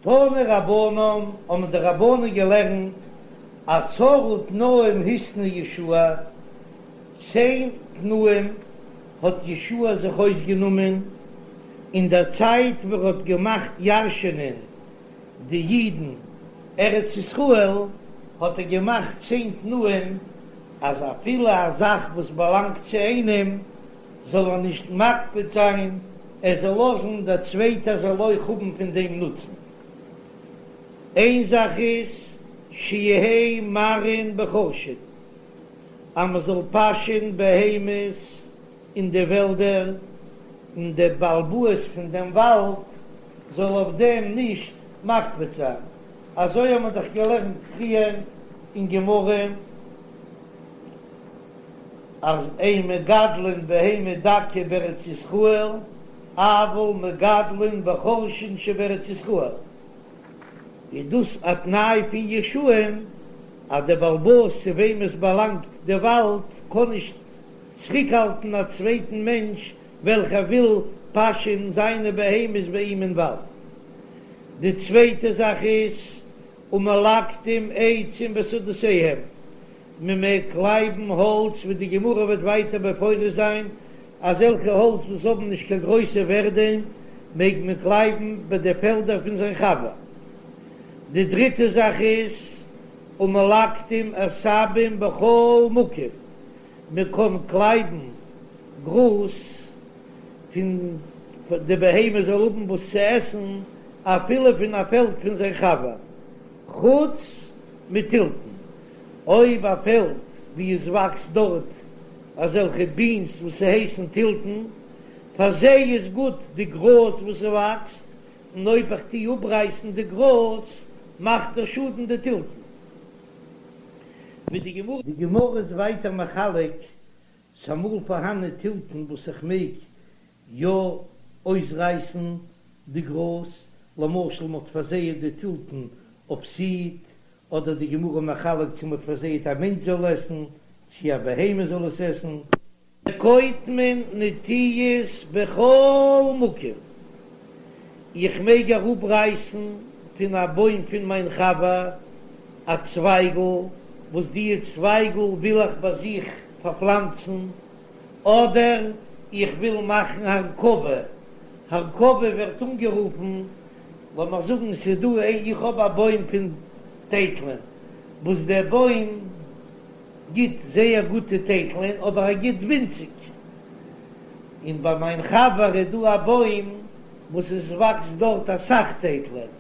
תנו רבנן, האבן די רבנן געלערנט, עשרה תנאים התנה יהושע, צען תנאים האט יהושע זיך אויסגענומען אין דער צייט ווען ער האט געמאכט ירשענען די אידן ארץ ישראל, האט ער געמאכט צען תנאים אז אפילו א זאך וואס באלאנגט צו איינעם זאל ער נישט מקפיד זיין, ער זאל לאזן דער צווייטער זאל אויך האבן פון דעם נוצן. איין זאך איז שיהא מרעין בחורשין, אז מען זאל פאשען בהמות אין די וועלדער, און דער בעל הבית פון דעם וואלד זאל אויף דעם נישט מקפיד זיין, אזוי האט מען דאך געלערנט פריער אין גמרא אז אין מגדלין בהמה דקה בארץ ישראל, אבל מגדלין בחורשין שבארץ ישראל, איז דאס א תנאי פון יהושע'ן אז דער בעל הבית צו וועם עס באלאנגט די וואלד קען נישט צוריקהאלטן א צווייטן מענטש וועלכער וויל פאשען זיינע בהמות ביי אים אין וואלד. די צווייטע זאך איז ומלקטים עצים בשדותיהם, מען מעג קלייבן האלץ ווי די גמרא וועט ווייטער מפרש זיין, אזעלכע האלץ וואס האבן נישט קיין גרויסע ווערדע מעג מען קלייבן ביי די פעלדער פון זיין חבר. די דריטע זאך איז ומלקטים עשבים בכל מקום, מען קען קלייבן גראז פון די בהמה זאל האבן וואס צו עסן אפילו פון א פעלד פון זיין חבר, חוץ מתלתן, אויב א פעלד ווי עס וואקסט דארט אזעלכע בינס וואס ס'הייסן תלתן, פאר זיי איז גוט די גראז וואס ס'וואקסט, און אויב איך טוה אפרייסן די גראז מאכט ער שאדן די תלתן. ווי די גמרא. די גמרא איז ווייטער מחלק, ס'אמאל פארהאנען תלתן וואס איך מעג יא אויסרייסן די גראז, למשל מ'האט פארזייעט די תלתן אויף סיד, אדער די גמרא מחלק צו מ'האט פארזייעט א מענטש זאל עסן, צו א בהמה זאל עס עסן. וקוטמין נטיעות בכל מקום, איך מעג אראפרייסן פון א בוים פון מיין חבר א צווייגל, וואס די צווייגל וויל איך ביי זיך פארפלאנצן, אדער איך וויל מאכן הרכבה, הרכבה ווערט אנגערופן, לאמיר זאגן ס'איז דא איך האב א בוים פון טייטלען, וואס דער בוים גיט זייער גוטע טייטלען אבער ער גיט ווינציג, און ביי מיין חבר איז דא א בוים וואס עס וואקסט דארט אסאך טייטלען,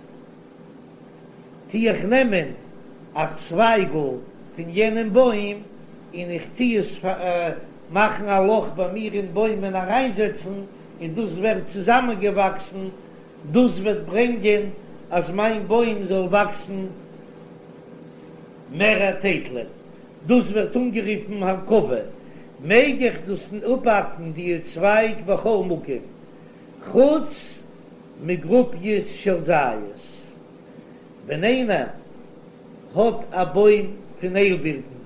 טו איך נעמען א צווייגל פון יענעם בוים און איך טו עס מאכן א לאך ביי מיר אין בוים און אריינזעצן, און דאס ווערט צוזאמענגעוואקסן, דאס וועט ברענגען אז מיין בוים זאל וואקסן מערער טייטלען, דאס ווערט אנגערופן הרכבה, מעג איך דאס אפהאקן די צווייג בכל מקום, חוץ מגרופיות של זית, ווען איינער האט א בוים פון איילבירטן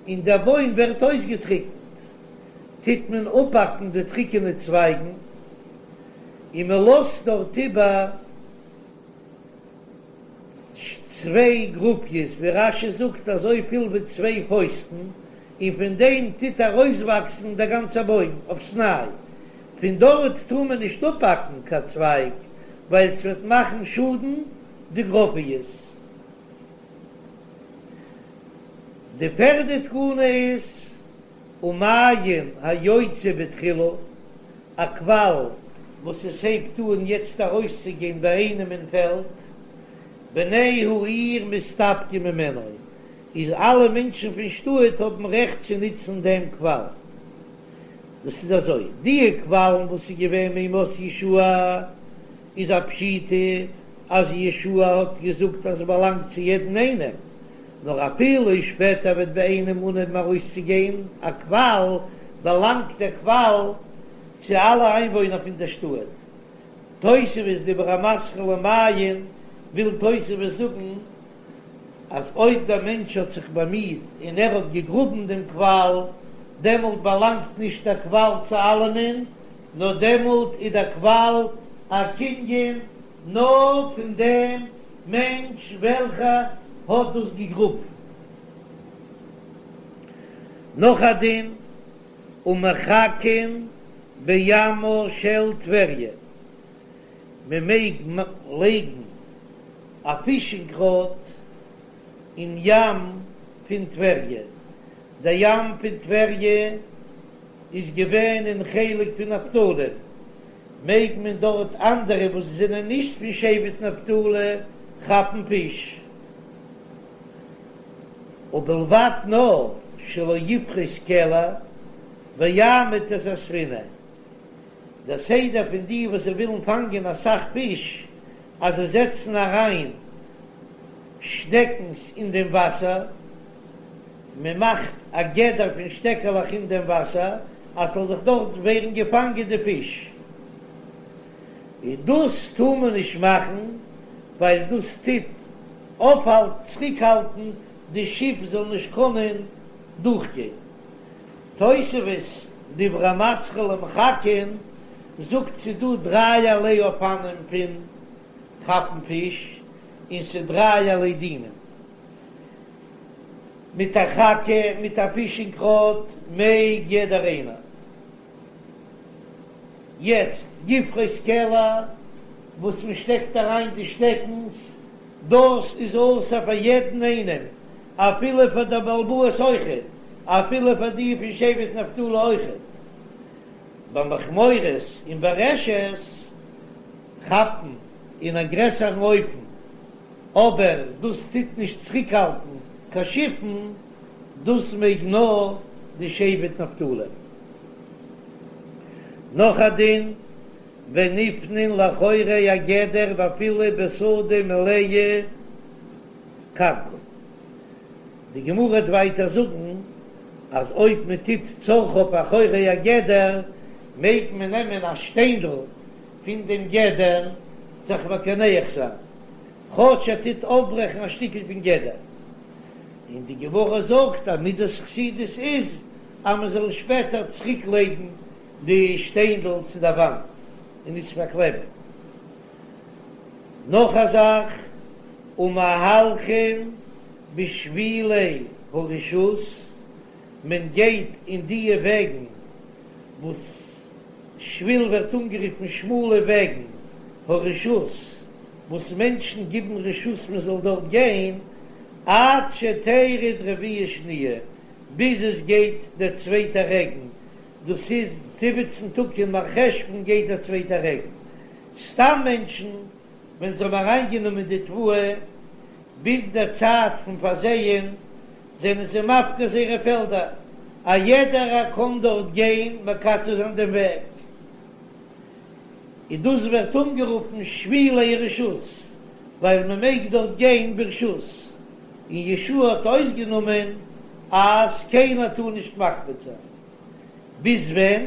און דער בוים ווערט אויסגעטריקנט, טוט מען אפהאקן די טריקענע צווייגן און מען לאזט דארט איבער צוויי גרופיות, ווי רש"י זאגט אזויפיל ווי צוויי פויסטן, און פון דעם טוט ארויסוואקסן דער גאנצער בוים אויפסניי, פון דארט טאר מען נישט אפהאקן קיין צווייג ווייל ס'וועט מאכן שאדן די גרופיות. די פערדע תקנה איז ומעיין היוצא בתחילה, א קוואל וואס עס הייבט אן יעצט ארויסצוגיין ביי איינעם אין פעלד, בני העיר מסתפקים ממנו, איז אלע מענטשן פון שטאט האבן רעכט צו נוצן דעם קוואל. דאס איז אזוי, די קוואלן וואס איז געווען מימות יהושע איז א פשיטא אז יהושע האט געזאגט אז עס באלאנגט צו יעדן איינעם, נאר אפילו שפעטער וועט ביי איינעם אנהייבן ארויסצוגיין א קוואל, באלאנגט דער קוואל צו אלע איינוואוינער פון דער שטאט. תוספות דיבור המתחיל למעיין וויל תוספות זאגן אז אויב דער מענטש האט זיך באמיט און ער האט געגראבן דעם קוואל, דעמאלט באלאנגט נישט דער קוואל צו אלעמען, נאר דעמאלט איז דער קוואל א קנין. נאר פון דעם מענטש וועלכער האט דאס געגראבן. נאך א דין, ומחכין בימה של טבריה, מען מעג לייגן א פישינג ראד אין ים פון טבריה, דער ים פון טבריה איז געווען אין חלק פון נפתלי, מעג מען דארט אנדערע וואס זענען נישט פון שבט נפתלי כאפן פיש, ובלבד נאר שלא יפרוס קלע ויעמיד את הספינה, דער סדר פון די וואס זיי ווילן פאנגען אסאך פיש אז זיי זעצן אריין שטעקנס אין דעם וואסער, מען מאכט א גדר פון שטעקעלעך אין דעם וואסער אז ס'זאל זיך דארט ווערן געפאנגען די פיש, און דאס טאר מען נישט מאכן ווייל דאס טוט אויפהאלטן, צוריקהאלטן, די שיף זאל נישט קענען דורכגיין. תוספות, דיבור המתחיל ומחכין, זאגט ס'דא דרייערליי אופנים פון כאפן פיש, און ס'דרייערליי דינים. מיט א חכה, מיט א פישינג ראד, מעג יעדער איינער. יעצט יפרוס קלע וואס מען שטעקט אריין די שטעקנס, דאס איז אסור פאר יעדן איינעם, אפילו פאר דער בעל הבית אויכעט, אפילו פאר די פון שבט נפתלי אויכעט. במכמורות און ברשת כאפן אין א גרעסערן אופן, אבער דאס טוט נישט צוריקהאלטן קיין שיפן, דאס מעג נאר די שבט נפתלי. נאך א דין, ונפנין לאחורי הגדר ואפילו בשדה מלאה כרכום. די גמרא וועט ווייטער זאגן אז אויב מען טוט צרכיו אחורי הגדר מעג מען נעמען א שטיינדל פון דעם גדר זיך מקנח זיין, כאטש ער טוט אויפברעכן א שטיקל פון גדר. און די גמרא זאגט אז מידת חסידות איז אז מען זאל שפעטער צוריק לייגן די שטיינדל צו די וואנט און נישט פארקלעבן. נאך א זאך, ומהלכין בשבילי הרשות, מען גייט אין דיע וועגן וואס שביל ווערט אנגערופן שמאלע וועגן, הרשות, וואס מענטשן גיבן רשות מען זאל דארט גיין, עד שתרד רביעה שניה, ביז עס גייט דער צווייטער רעגן, דאס איז זיבעצן טאג אין מרחשוון גייט דער צווייטער רעגן. סתם מענטשן ווען זיי האבן אריינגענומען די תבואה ביז דער צייט פון פארזייען זענען זיי מפקיר זייערע פעלדער, א יעדער קען דארט גיין מקצר זיין דעם וועג, און דאס ווערט אנגערופן שבילי רשות ווייל מען מעג דארט גיין ברשות, און יהושע האט אויסגענומען אז קיינער טאר נישט מקפיד זיין. ביז ווען?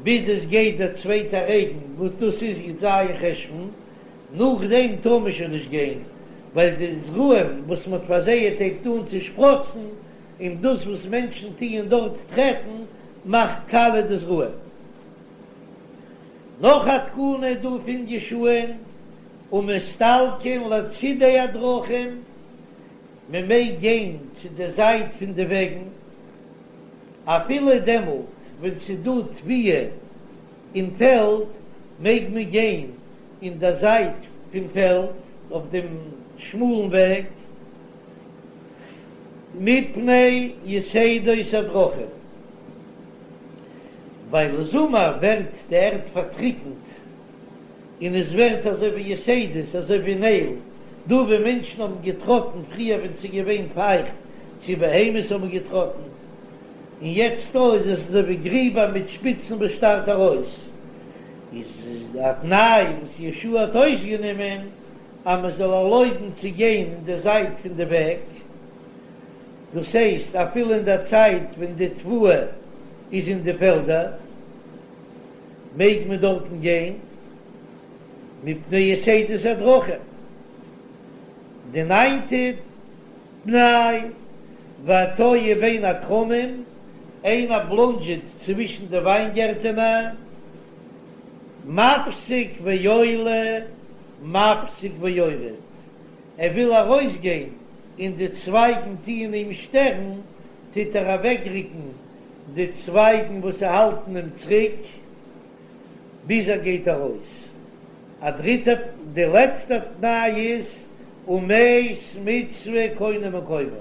ביז עס גייט דער צווייטער רעגן וואס דאס איז י"ז חשוון, נאכדעם טאר מען שוין נישט גיין, ווייל די זרעים וואס מען האט פארזייעט הייבט אן צו שפראצן, און דאס וואס מענטשן טוען דארט טרעטן מאכט קאליע די זרעים. נאך א תקנה איז דא פון יהושע'ן, ומסתלקין לצידי הדרכים, מען מעג גיין צו די זייט פון די וועגן, אפילו דעמאלט ווען ס'איז דא תבואה אין פעלד, מעג מען גיין אין די זייט פון פעלד אויף דעם שמאלן וועג, מפני יתדות הדרכים, ווייל זומער ווערט די ערד פארטריקנט און עס ווערט אזוי ווי יתדות, אזוי ווי נעגל, דא ווי מענטשן האבן געטראטן פריער ווען ס'איז געווען פייכט, צו בהמות האבן געטראטן, און יעצט דא איז עס אזוי ווי גריבער מיט שפיצן וואס שטארט ארויס, איז א תנאי וואס יהושע האט אויסגענומען אז מען זאל ערלויבן צו גיין אין די זייט פון די וועג, דאס הייסט אפילו אין די צייט ווען די תבואה איז אין די פעלדער. מעג מען דארטן גיין מפני יתדות הדרכים. די ניינטע תנאי, והתועה בין הכרמים, איינער בלאנדזשעט צווישן די וויינגערטענער, מפסיק ועולה. מפסיק ויורד, ער וויל ארויסגיין און די צווייגן טוען אים שטערן, טוט ער אוועקרוקן די צווייגן וואס האלטן אים צוריק ביז ער גייט ארויס. א דריטע, די לעצטע תנאי איז ומת מצוה קונה מקומו,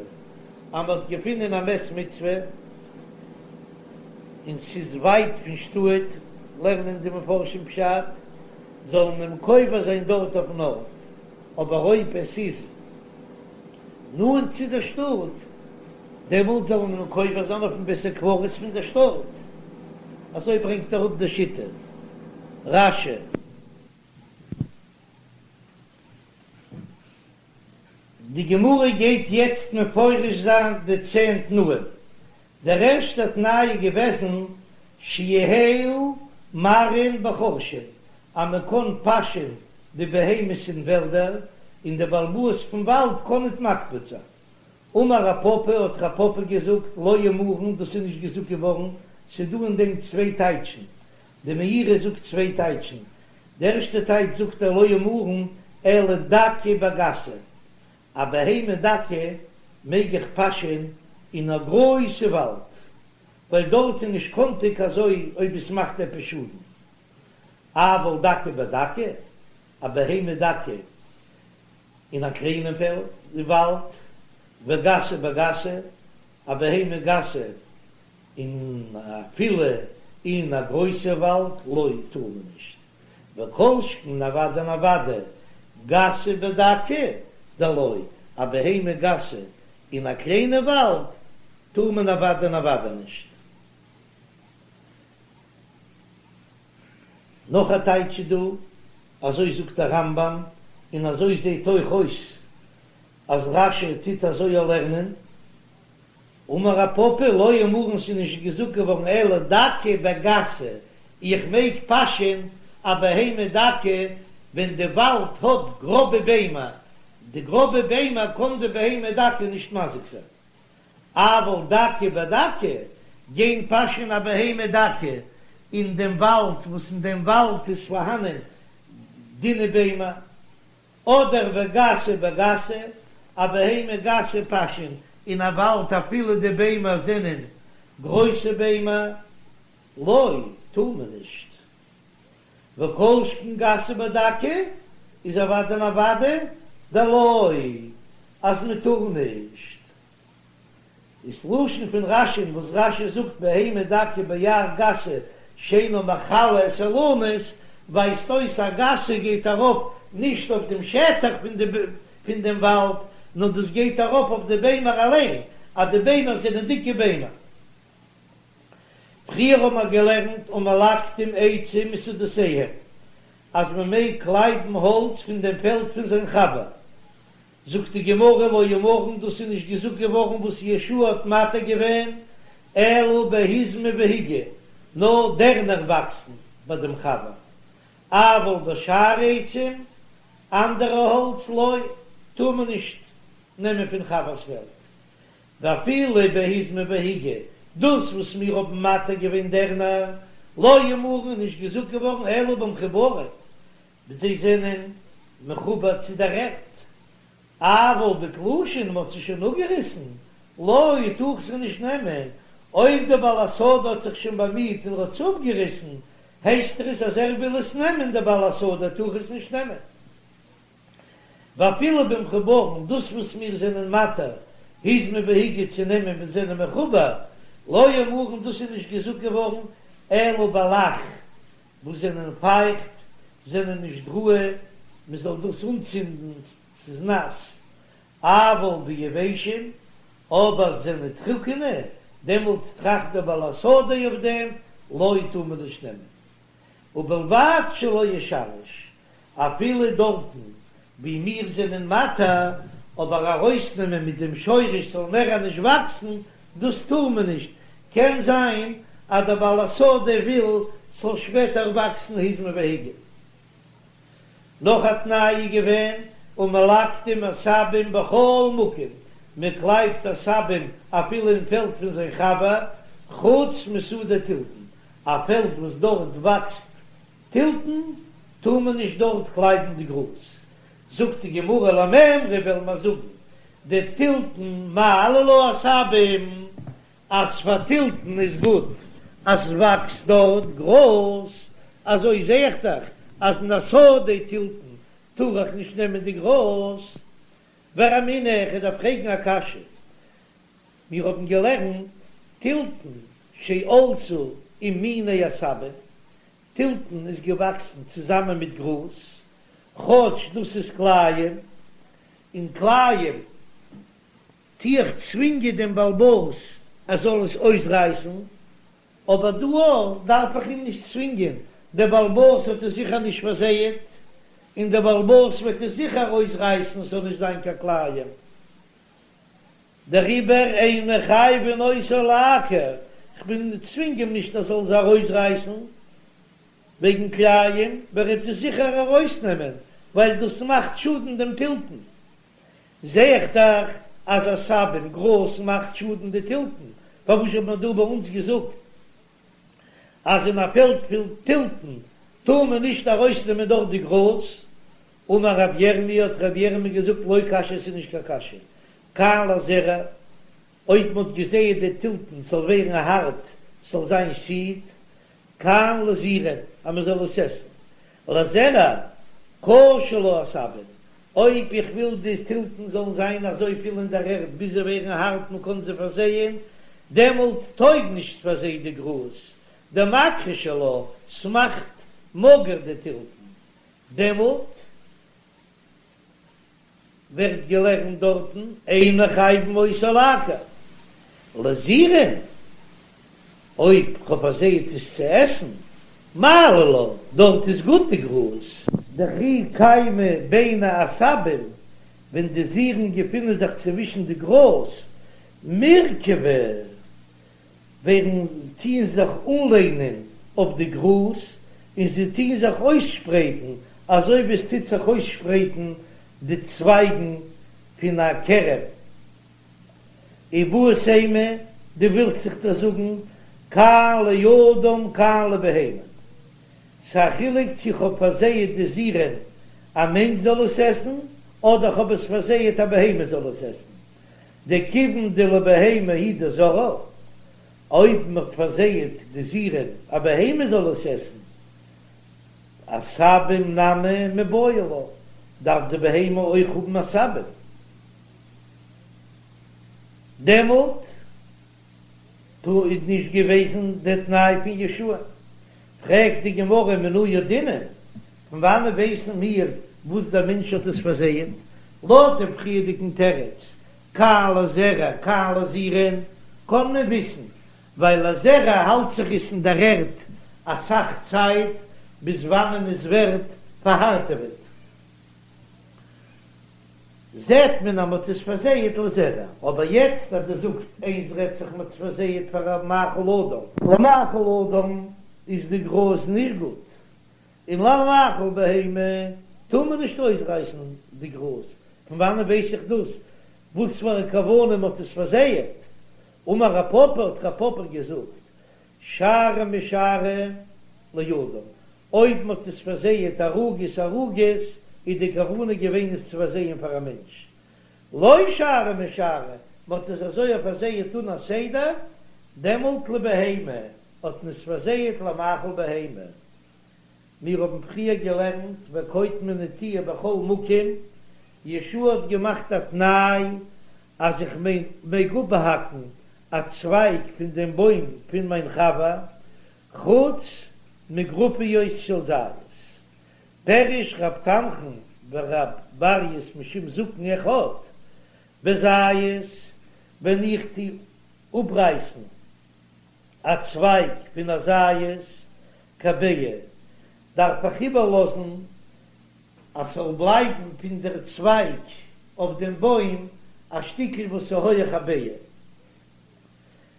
אז מ'האט געפונען א מת מצוה און ס'איז ווייט פון שטאט, לערנען די מפרשים פשט, זאל מען אים קובר זיין דארט אויפן ארט, אבער אויב עס איז נאנט צו דער שטאט, דעמאלט זאל מען אים קובר זיין אויפן בית הקברות פון דער שטאט. אזוי ברענגט אראפ די שיטה רש"י. די גמרא גייט יעצט מפרש זיין די צען תנאים. דער ערשטער תנאי איז געוועזן שיהיו מרעין בחורשין, אז מען קען פאשען די בהמות אין וועלדער, און דער בעל הבית פון וואלד קען ניט מקפיד זיין. אמר רב פפא, האט רב פפא געזאגט, לא אמרן, דאס איז נישט געזאגט געווארן, ס'איז דא אין דעם צוויי טייטשן, די מאירי זאגט צוויי טייטשן, די ערשטע טייטש זאגט ער לא אמרן אלא דקה בגסה, א בהמה דקה מעג איך פאשען אין א גרויסע וואלד, ווייל דארט איז נישט קאנטיג אזוי אויב עס מאכט עפעס שאדן, אבל דקה בדקה, א בהמה דקה אין א קליינעם פעלד וואלד, וגסה בגסה, א בהמה גסה און אפילו אין א גרויסע וואלד לא טאר מען נישט, וכל שכן אוודאי און אוודאי גסה בדקה דלא, א בהמה גסה אין א קליינע וואלד טאר מען אוודאי און אוודאי נישט. נאך א טייטש איז דא, אזוי זאגט דער רמב"ם, און אזוי זעט אויך אויס אז רש"י טוט אזוי לערנען, אמר רב פפא לא אמרן ס'איז נישט געזאגט געווארן אלא דקה בגסה, איך מעג פאשען א בהמה דקה ווען די וואלד האט גראבע ביימער, די גראבע ביימער קען די בהמה דקה נישט מזיק זיין, אבל דקה בדקה, גיין פאשען א בהמה דקה אין דעם וואלד וואס אין דעם וואלד איז פארהאנען דינע ביימער, אדער וגסה בגסה, א בהמה גסה פאשען אין א וואלד אפילו די ביימער זענען גרויסע ביימער, לא, טאר מען נישט. וכל שכן גסה בדקה איז אוודאי און אוודאי דלא אז מען טאר נישט. איז לשון פון רש"י'ן וואס רש"י זאגט בהמה דקה ביער גסה שאינה מכלה את האילנות ווייזט אויס אז גסה גייט ארויף נישט אויף דעם שטח פון דעם וואלד נאר דאס גייט ארויף אויף די ביימער אליין אז די ביימער זענען דיקע ביימער. פריער האבן מיר געלערנט ומלקטין עצים משדותיהם אז מען מעג קלייבן האלץ פון דעם פעלד פון זיין חבר, זאגט די גמרא לא אמרן דאס איז נישט געזאגט געווארן וואס יהושע האט מתיר געווען אלא בהיזמי והיגי, נאר דערנער וואקסן ביי דעם חבר, אבל בשאר עצים, אנדערע האלץ לא, טאר מען נישט נעמען פון חבר'ס פעלד, ואפילו בהיזמי והיגי, דאס וואס מיר האבן מתיר געווען דערנער, לא אמרן איז נישט געזאגט געווארן אלא במחוברין, זיי זענען מחובר צו דער ערד, אבל בתלושין מ'האט זיי שוין אפגעריסן, לא טאר איך זיי נישט נעמען, אויב דער בעל השדה האט זיך שוין באמיהט און האט עס אפגעריסן, הייסט עס אז ער וויל עס נעמען, דער בעל השדה טאר איך עס נישט נעמען. ואפילו במחוברין, דאס וואס מיר זענען מתיר היזמי והיגי צו נעמען ווען זענען מחובר, לא אמרן דאס איז נישט געזאגט געווארן אלא בלח וואס זענען פייכט, זענען נישט ראוי מען זאל דאס אנצינדן, ס'איז נאס, אבל ביבשים, אבער זענען טרוקענע, דעמאלט טראכט דער בעל השדה אויף דעם, לא טאר מען נישט נעמען. ובלבד שלא ישרש, אפילו דארטן ווי מיר זענען מתיר, אבער ארויסנעמען מיט דעם שורש ס'זאל מער נישט וואקסן, דאס טאר מען נישט, קען זיין אז דער בעל השדה וויל ס'זאל שפעטער וואקסן היזמי והיגי. נאך א תנאי איז געווען ומלקטין עשבים בכל מקום, מען קלייבט עשבים אפילו אין פעלד פון זיין חבר, חוץ משדה תלתן, א פעלד וואס דארט וואקסט תלתן טאר מען נישט דארט קלייבן די גראז. זאגט די גמרא למימרא וועלן מיר זאגן דתלתן מעלי לה עשבים, אז פאר תלתן איז גוט אז ס'וואקסט דארט גראז, אזוי זע איך דאך אז אין א שדה תלתן טאר איך נישט נעמען די גראז. ורמינהו, איך דארף פרעגן א קשיא, מיר האבן געלערנט תלתן שעלתה עם מיני עשבים, תלתן איז געוואקסן צוזאמען מיט גראז, כאטש דאס איז כלאים, און כלאים טו איך צווינגען דעם בעל הבית ער זאל עס אויסרייסן, אבער דא אויך דארף איך אים נישט צווינגען, דער בעל הבית האט עס זיכער נישט פארזייעט, און דער בעל הבית וועט עס זיכער אויסרייסן עס זאל נישט זיין קיין כלאים. דעריבער אין מחייבין אותו לעקור, כ'בין צווינג אים נישט ער זאל זיי ארויסרייסן וועגן כלאים, וועט ער עס זיכער ארויסנעמען, ווייל דאס מאכט שאדן דעם תלתן. זע איך דאך אז עשבים, גראז מאכט שאדן די תלתן, פארוואס האט מען דא ביי אונז געזאגט אז אין א פעלד פון תלתן טאר מען נישט ארויסנעמען דארט די גראז? אמר רב ירמי' האט רב ירמי' געזאגט לא קשיא עס איז נישט קיין קשיא, כאן לזרע, אויב מען האט געזייט די תלתן ס'זאל ווערן הארט ס'זאל זיין סיד, כאן לזירין אז מען זאל עס עסן, לזרע קשו לה עשבים, אויב איך וויל די תלתן זאלן זיין אזויפיל אין דער ערד ביז זיי ווערן הארט מען קען זיי פארזייען, דעמאלט טויג נישט פאר זיי די גראז, דמכחישי לה, ס'מאכט מאגער די תלתן, דעמאלט ווערט געלערנט דארטן אין מחייבין אותו לעקור לזירין, אויב כ'האב פארזייט עס צו עסן, מעלי לה, דארט איז גוט די גראז. דכי קיימי ביני עשבים, ווען די זירין געפינען זיך צווישן די גראז, מירכבי ווערן טוען זיך אנלענען אויף די גראז און זיי טוען זיך אויסשפרייטן אזוי ווי עס טוט זיך אויסשפרייטן די צווייגן פון א כרם. איבעית אימא, דו ווילסט זיך דאך זאגן כאן לאדם כאן לבהמה. ס'א חילוק צו כ'האב פארזייעט די זירין א מענטש זאל עס עסן אדער כ'האב עס פארזייעט א בהמה זאל עס עסן. דכיון דלבהמה הוא דזרעה, אויב מ'האט פארזייעט די זירין א בהמה זאל עס עסן, עשבים נמי מיבעי לה, דארף די בהמה אויך האבן עשבים, דעמאלט דא איז נישט געוועזן די תנאי פון יהושע. פרעגט די גמרא מנא ידעינן, פון וואנען ווייסן מיר וואס דער מענטש האט עס פארזייעט? לויט דעם פריערדיגן תירוץ, כאן לזרע כאן לזירין, קען מען וויסן, ווייל לזרע האלט זיך עס אין דער ערד אסאך צייט ביז וואנען עס ווערט פארהארטעוועט. זעט מען אז מ'האט עס פארזייעט לזרע, אבער יעצט אז דו זאגסט איינס רעדט זיך מ'האט עס פארזייעט פאר א מאכל אדם. למאכל אדם איז די גראז נישט גוט, און למאכל בהמה טאר מען נישט אויסרייסן די גראז, פון וואנען ווייס איך דאס? וואס פאר א כוונה מ'האט עס פארזייעט? אמר רב פפא האט רב פפא געזאגט, שערה משערה לאדם, אויב מ'האט עס פארזייעט ערוגות ערוגות, איז די כוונה געווען עס צו פארזייען פאר א מענטש. לא שערה משערה, מ'האט עס אזוי פארזייעט אן א סדר, דעמאלט לבהמה, האט מען עס פארזייעט למאכל בהמה. מיר האבן פריער געלערנט וקוטמין נטיעה בכל מקום, יהושע האט געמאכט א תנאי אז איך מעג אפהאקן א צווייג פון דעם בוים פון מיין חבר, חוץ מגרופיות של זית. פירש רב תנחום ורב ברייס משום זקן אחד, בזית, ווען איך טו אפרייסן א צווייג פון א זית כביצה, דארף איך איבערלאזן אז ס'זאל בלייבן פון דער צווייג אויף דעם בוים א שטיקל וואס איז הויעך א ביצה.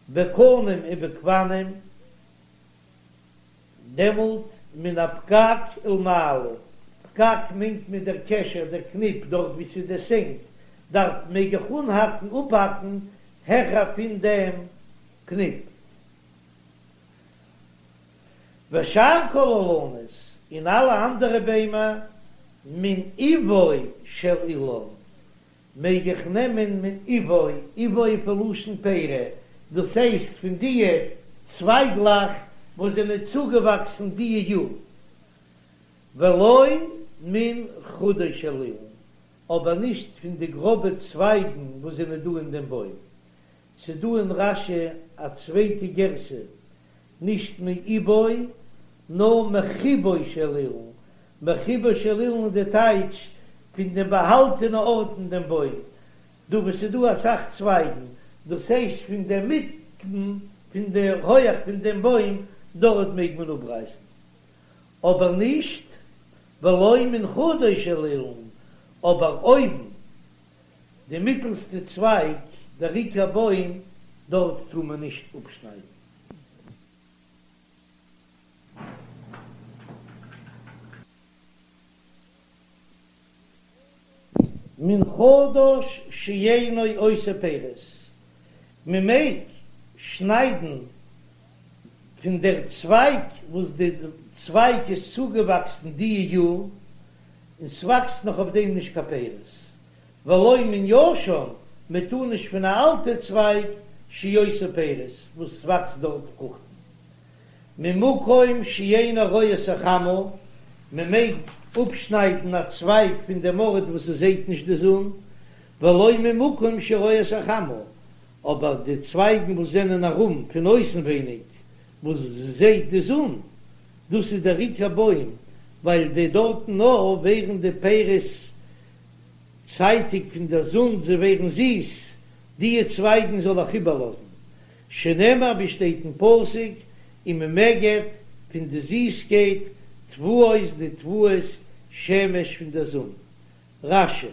בקנים ובגפנים, דעמאלט מן הפקק ולמעלה, פקק מיינט מען דער קשר, דער קניפ, דארט ווי ס'איז די סענק, דארט מעג איך אנהאקן, אפהאקן, העכער פון דעם קניפ. ושאר כל האילנות, און אלע אנדערע ביימער, מן אבו. של אילן, מעג איך נעמען מאיבו, איבו איז פון לשון פרי, דאס הייסט פון דיע צווייגלעך וואס זענען צוגעוואקסן דיע יאר, ולא מן חודו של אילן, אבער נישט פון די גראבע צווייגן וואס זענען דא אין דעם בוים. ס'דא אין רש"י א צווייטע גירסא, נישט מאיבו, נאר מחיבו של אילן, מחיבו של אילן איז די טייטש פון דעם באהאלטענע ארט אין דעם בוים, דא וואו ס'איז דא אסאך צווייגן, דאס הייסט פון דער מיטן פון די הויעך פון דעם בוים, דארט מעג מען אפרייסן, אבער נישט ולא מן חודו של אילן, אבער אויבן די מיטלסטע צווייג, דער עיקר בוים, דארט טאר מען נישט אפשניידן. מן חדש שאינו עושה פירות, מען מעג שניידן פון דער צווייג וואס די צווייג איז צוגעוואקסן די יאר, און ס'וואקסט נאך אויף דעם נישט קיין פירות, ולא מן ישן, מען טאר נישט פון א אלטע צווייג שעושה פירות וואס ס'וואקסט דארט פרוכטן. ממקום שאינו רואה את החמה, מען מעג אפשניידן א צווייג פון דעם ארט וואס עס זעט נישט די זון, ולא ממקום שרואה את החמה, אבער די צווייגן וואס זענען ארום פון אויסנווייניג וואס זעט די זון, דאס איז דער עיקר בוים, ווייל די דארטן נאר ווערן די פירות צייטיג פון דער זון, זיי ווערן זיס, דיע צווייגן זאל איך איבערלאזן, שנאמר ווי שטייט אין פסוק, וממגד פון די זיסקייט תבואות די תבואות שמש פון דער זון. רש"י.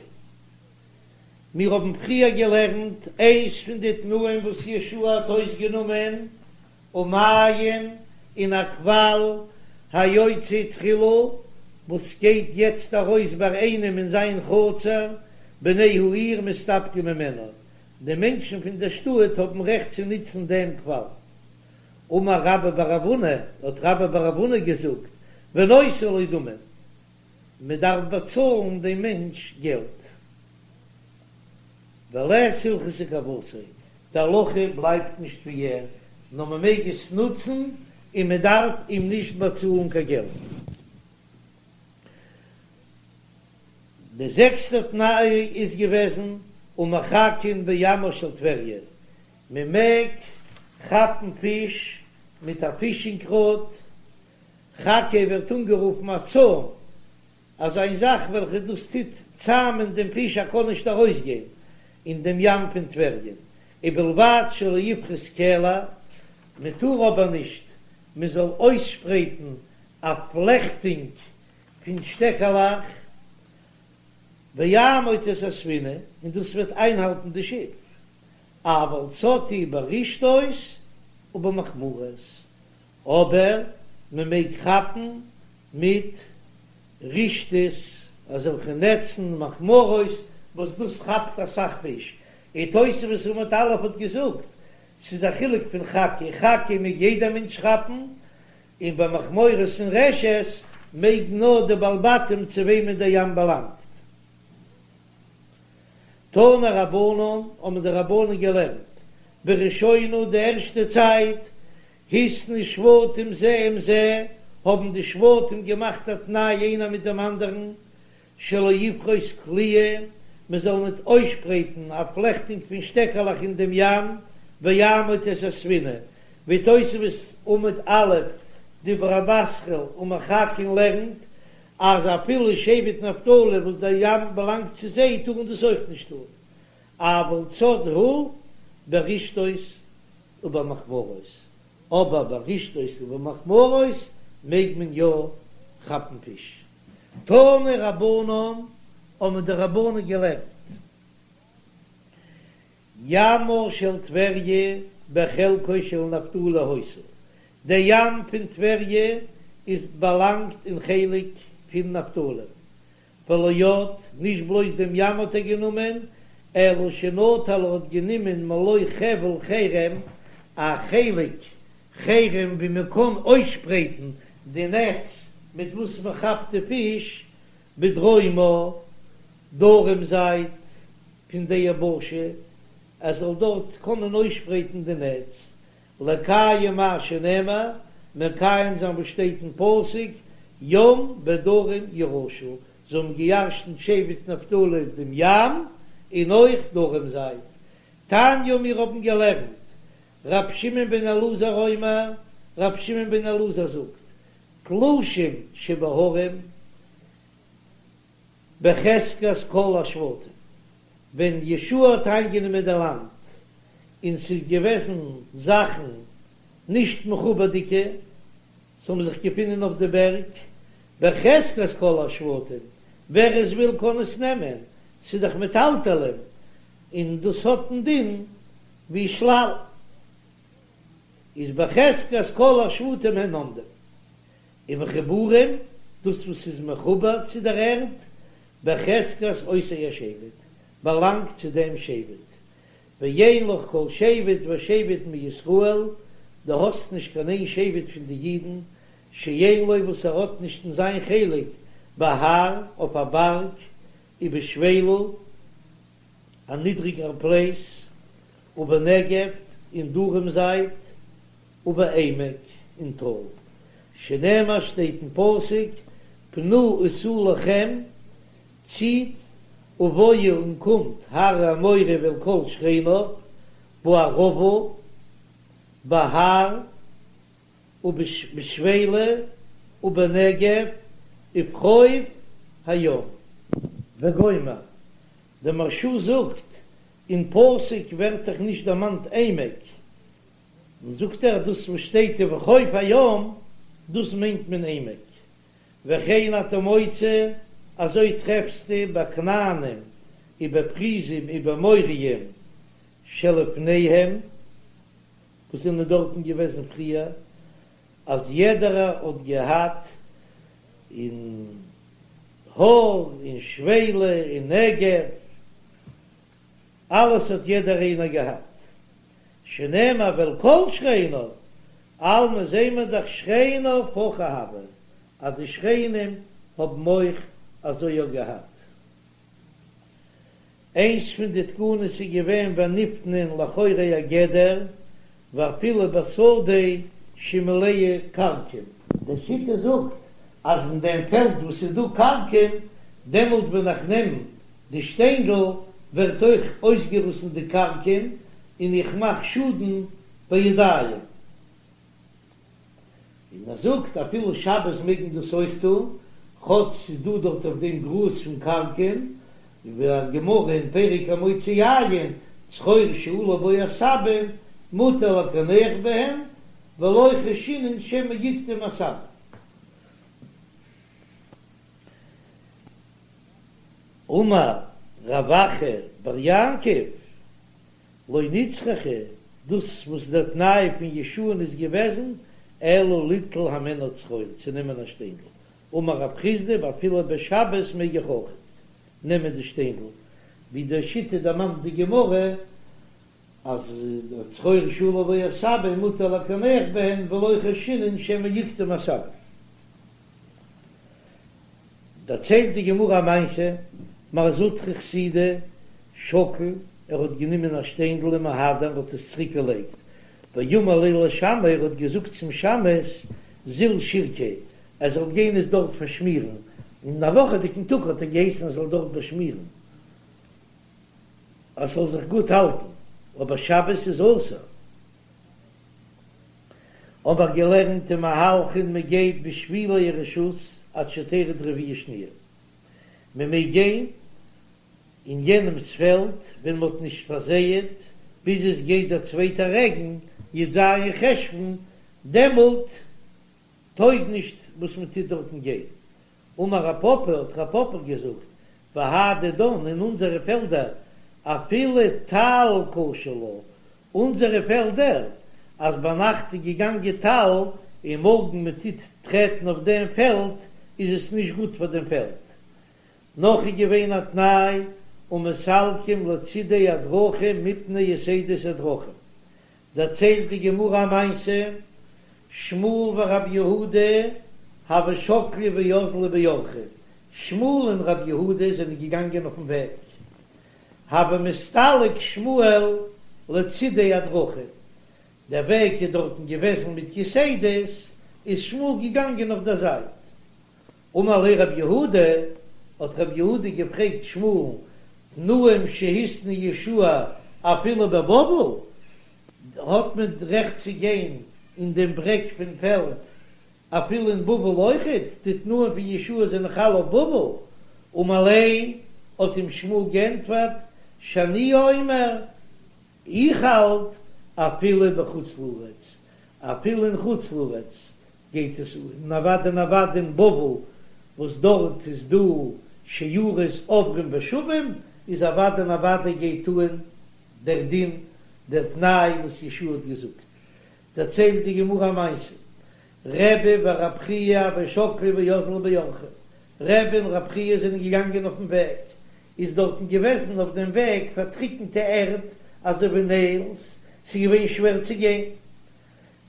מיר האבן פריער געלערנט איינס פון די תנאים וואס יהושע האט אויסגענומען, ומעיין און א קוואל היוצא תחילה וואס גייט יעצט ארויס ביי איינעם אין זיין חצר, בני העיר מסתפקים ממנו, די מענטשן פון דער שטאט האבן רעכט צו נוצן דעם קוואל. אמר רבה בר רב הונא, האט רבה בר רב הונא געזאגט, ונותן לו דמים, מען דארף באצאלן דעם מענטש געלט. ולית הלכתא כוותיה, די הלכה בלייבט נישט ווי ער, נאר מען מעג עס נוצן און מען דארף אים נישט באצאלן קיין געלט. די זעקסטע תנאי איז געוועזן ומחכין בימה של טבריה, מען מעג כאפן פיש מיט א פישינג ראד, חכה ווערט אנגערופן א צוים, אזא איין זאך וועלכע דאס טוט צאמען דעם פיש ער קען נישט ארויסגיין אין דעם ים פון טבריה, ובלבד שלא יפרוס קלע, מען טאר אבער נישט מען זאל אויסשפרייטן א פלעכטונג פון שטעקעלעך, ויעמוד את הספינה, און דאס וועט איינהאלטן די שיף, אבל צד הוא ברשתות ובמכמורות, אבער מען מעג כאפן מיט רשתות, אזעלכע נעצן, מכמורות, וואס דאס כאפט אסאך פיש, און תוספות עמוד א' האט געזאגט, ס'איז א חילוק פון חכה, חכה מעג יעדער מענטש כאפן, און ביי מכמורות און רשת מעג נאר די בעלי בתים צו וועמען דער ים באלאנגט. תנו רבנן, האבן די רבנן געלערנט, בראשונה די ערשטע צייט, התנו שבטים זה עם זה, האבן די שבטים געמאכט א תנאי איינער מיט דעם אנדערן, שלא יפרוס קליעה, מען זאל ניט אויסשפרייטן א פלעכטונג פון שטעקעלעך אין דעם ים, ויעמוד את הספינה, ווי תוספות עמוד א', דיבור המתחיל ומחכין לערנט, אז אפילו שבט נפתלי וואס דער ים באלאנגט צו זיי טארן דאס אויך נישט טאן, אבל צד הוא ברשתות ובמכמורות, אבער ברשתות ובמכמורות מעג מען יא כאפן פיש. תנו רבנן, האבן די רבנן געלערנט, ימה של טבריה בחלקו של נפתלי היתה, דער ים פון טבריה איז באלאנגט אין חלק פון נפתלי, ולא עוד, נישט בלויז דעם ים האט ער גענומען, אלא שנטל ער האט גענומען מלא חבל חרם, א חלק חרם ווי מען קען אויסשפרייטן די נעץ מיט וואס מען כאפט די פיש, בדרומה. דרום זייט פון די יבשה, ער זאל דארט קענען אויסשפרייטן די נעץ, לקיים מה שנאמר, מקיים זיין וואס שטייט אין פסוק, ים ודרום ירשו, זיי האבן געירשנט שבט נפתלי דעם ים און אויך דרום זייט. תניא מיר האבן געלערנט, ר' שמעון בן אלעזר אומר, ר' שמעון בן אלעזר זאגט, תלושים שבהרים בחזקת כל השבטים, ווען יהושע האט איינגענומען די לאנד און ס'איז געוועזן זאכן נישט מחובר'דיגע, ס'האבן זיך געפונען אויף די בערג, בחזקת כל השבטים, ווער עס וויל קען עס נעמען, ס'איז דאך מטלטלין, און דאס האט דעם דין ווי שלל, איז בחזקת כל השבטים הן עומדים, ומחוברים, דאס וואס איז מחובר צו דער ערד, בחזקת אותו השבט, באלאנגט צו דעם שבט, ואין לך כל שבט ושבט מישראל, דו האסט נישט קיין איין שבט פון די אידן, שאין לו וואס ער האט נישט אין זיין חלק בהר, אויף א בארג, ובשפלה, א נידריגער פלעיס, ובנגב, אין דרום זייט, ובעמק, אין טאל, שנאמר שטייט אין פסוק, פנו ושאו לכם, ציט, ובואו און קומט, הר האמורי ואל כל שכניו, בערבה, בהר, ובשפלה, ובנגב, ובחוף הים. וגומר, דער מהרש"א זאגט, אין פסוק ווערט דאך נישט דערמאנט עמק, און זאגט ער דאס וואס שטייט ובחוף הים, דאס מיינט מען עמק. וכן אתה מוצא, אזוי טרעפסטו ביי כנענים ובפריזים ובאמוריים שלפניהם, וואס זענען דארטן געוועזן פריער, אז יעדערער האט געהאט אין הר אין שפלה אין נגב, אלעס האט יעדער איינער געהאט, שנאמר ואל כל שכניו, אלמא זעהן מיר דאך שכניו הכי הוה, אז די שכנים האבן אויך אזוי יא געהאט. איינס פון די תקנות איז געווען ונפנין לאחורי הגדר ואפילו בשדה שמלאה כרכום. די שיטה זאגט אז אין דעם פעלד וואס איז דא כרכום, דעמאלט ווען איך נעם די שטיינדל ווערט אויך אויסגעריסן די כרכום און איך מאך שאדן בידיים. און ער זאגט אפילו שבת מעג מען דאס אויך טון, כאטש ס'איז דא דארט אויף דעם גראז פון כרכום, ווי א גמרא אין פרק המוציא יין, צרור שעלו בו עשבים מותר לקנח בהן, ולא חיישינן שמא יקטום עשבים. אמר רב אחא בר יעקב, לא נצרכה, דאס וואס דער תנאי פון יהושע'ן איז געוועזן, אלא ליטול הימנה צרור, צו נעמען א שטיינדל. אמר רב חסדא, ואפילו בשבת מעג איך אויך נעמען די שטיינדל, ווי די שיטה דערמאנט די גמרא, אז צרור שעלו בו עשבים מותר לקנח בהן ולא חיישינן שמא יקטום עשבים. דערציילט די גמרא א מעשה, מר זוטרא חסידא שקל, ער האט גענומען א שטיינדל ומהדר און האט עס צוריק געלייגט, ואמר ליה לשמעיה, ער האט געזאגט צום שמש זיל שירקיה, ער זאל גיין עס דארט פארשמירן, אין א וואכעדיגן טאג האט ער געהייסן ער זאל דארט באשמירן אז ס'זאל זיך גוט האלטן, אבער שבת איז אסור. האב איך געלערנט ומהלכין מען גייט בשבילי הרשות עד שתרד רביעה שניה, מען מעג גיין אין יענעמס פעלד ווען מען האט נישט פארזייעט ביז עס גייט דער צווייטער רעגן י"ז חשוון, דעמאלט טויג נישט וואס מען טוט דארטן גיין. אמר רב פפא, האט רב פפא געזאגט, בהא דידן אין אונזערע פעלדער אפילו טל קשה לה, אונזערע פעלדער, אז ביינאכט איז געגאנגען טל און מארגן מען טוט טרעטן אויף דעם פעלד איז עס נישט גוט פאר דעם פעלד. נאך איז געווען א תנאי ומסלקים לצידי הדרכים מפני יתידות הדרכים. דערציילט די גמרא א מעשה, שמואל ורב יהודה הוו שקלי ואזלי באורחא. שמואל און רב יהודה זענען געגאנגען אויפן וועג, הוה מסתלק שמואל לצידי הדרכים, דער וועג איז דארטן געוועזן מיט יתדות, איז שמואל געגאנגען אויף דער זייט. אמר ליה רב יהודה, האט רב יהודה געפרעגט שמואל'ן, תנאים שהתנה יהושע אפילו בבבל, האט מען רעכט צו גיין אין דעם ברעג פון פעלד אפילו אין בבל אויכעט, די תנאים פון יהושע זענען חל אויף בבל, אמר ליה, האט אים שמואל גענטפערט, שאני אומר, איך האלט אפילו בחוץ לארץ, אפילו אין חוץ לארץ גייט עס אן, און אוודאי און אוודאי אין בבל וואס דארט איז דא שיירות עוברים ושבים, איז אוודאי און אוודאי גייט אן דער דין, דער תנאי וואס יהושע האט געזאגט. דערציילט די גמרא א מעשה, רבי ורב חייא הוו שקלי ואזלי באורחא, רבי און רב חייא זענען געגאנגען אויפן וועג, איז דארטן געוועזן אויף דעם וועג פארטריקנטע ערד אזוי ווי נעילס, ס'איז געווען שווער צו גיין,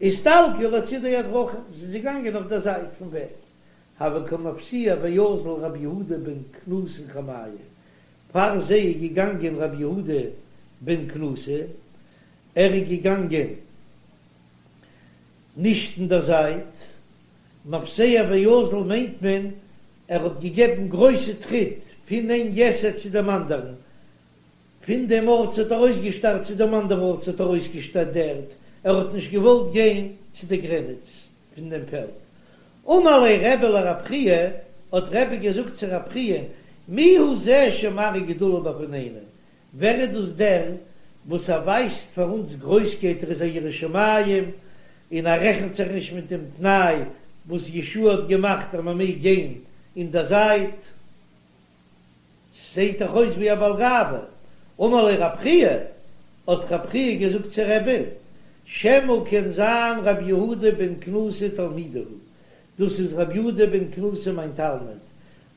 אסתלקו לצידי הדרכים, זענען זיי געגאנגען אויף דער זייט פון וועג, הוה קא מפסיע ואזיל רבי יהודה בן קנוסא קמייהו, פאר זיי איז געגאנגען רבי יהודה בן קנוסא, ער איז געגאנגען נישט אין דער זייט, מפסיע ואזיל מיינט מען ער האט געגעבן גרויסע טריט פון איין יתד צו דעם אנדערן, פון דעם ארט ס'האט ארויסגעשטארט צו דעם אנדערן ארט ס'האט ארויסגעשטארט די ערד, ער האט נישט געוואלט גיין צו די גרעניץ פון דעם פעלד. אמר ליה רבי לרב חייא, האט רבי געזאגט צו רב חייא, מי הוא זה שמראה גדולה בפנינו, ווער איז דאס דער וואס ער ווייזט פאר אונז גרויסקייט, ער איז א ירא שמים און ער רעכנט זיך נישט מיט דעם תנאי וואס יהושע האט געמאכט אז מען מעג גיין אין דער זייט, ס'זעהט דאך אויס ווי א בעל גאווה. אמר ליה רב חייא, האט רב חייא געזאגט צו רבי'ן, שמא קען זיין רבי יהודה בן קנוסא תלמידי הוא, דאס איז רבי יהודה בן קנוסא מיין תלמיד,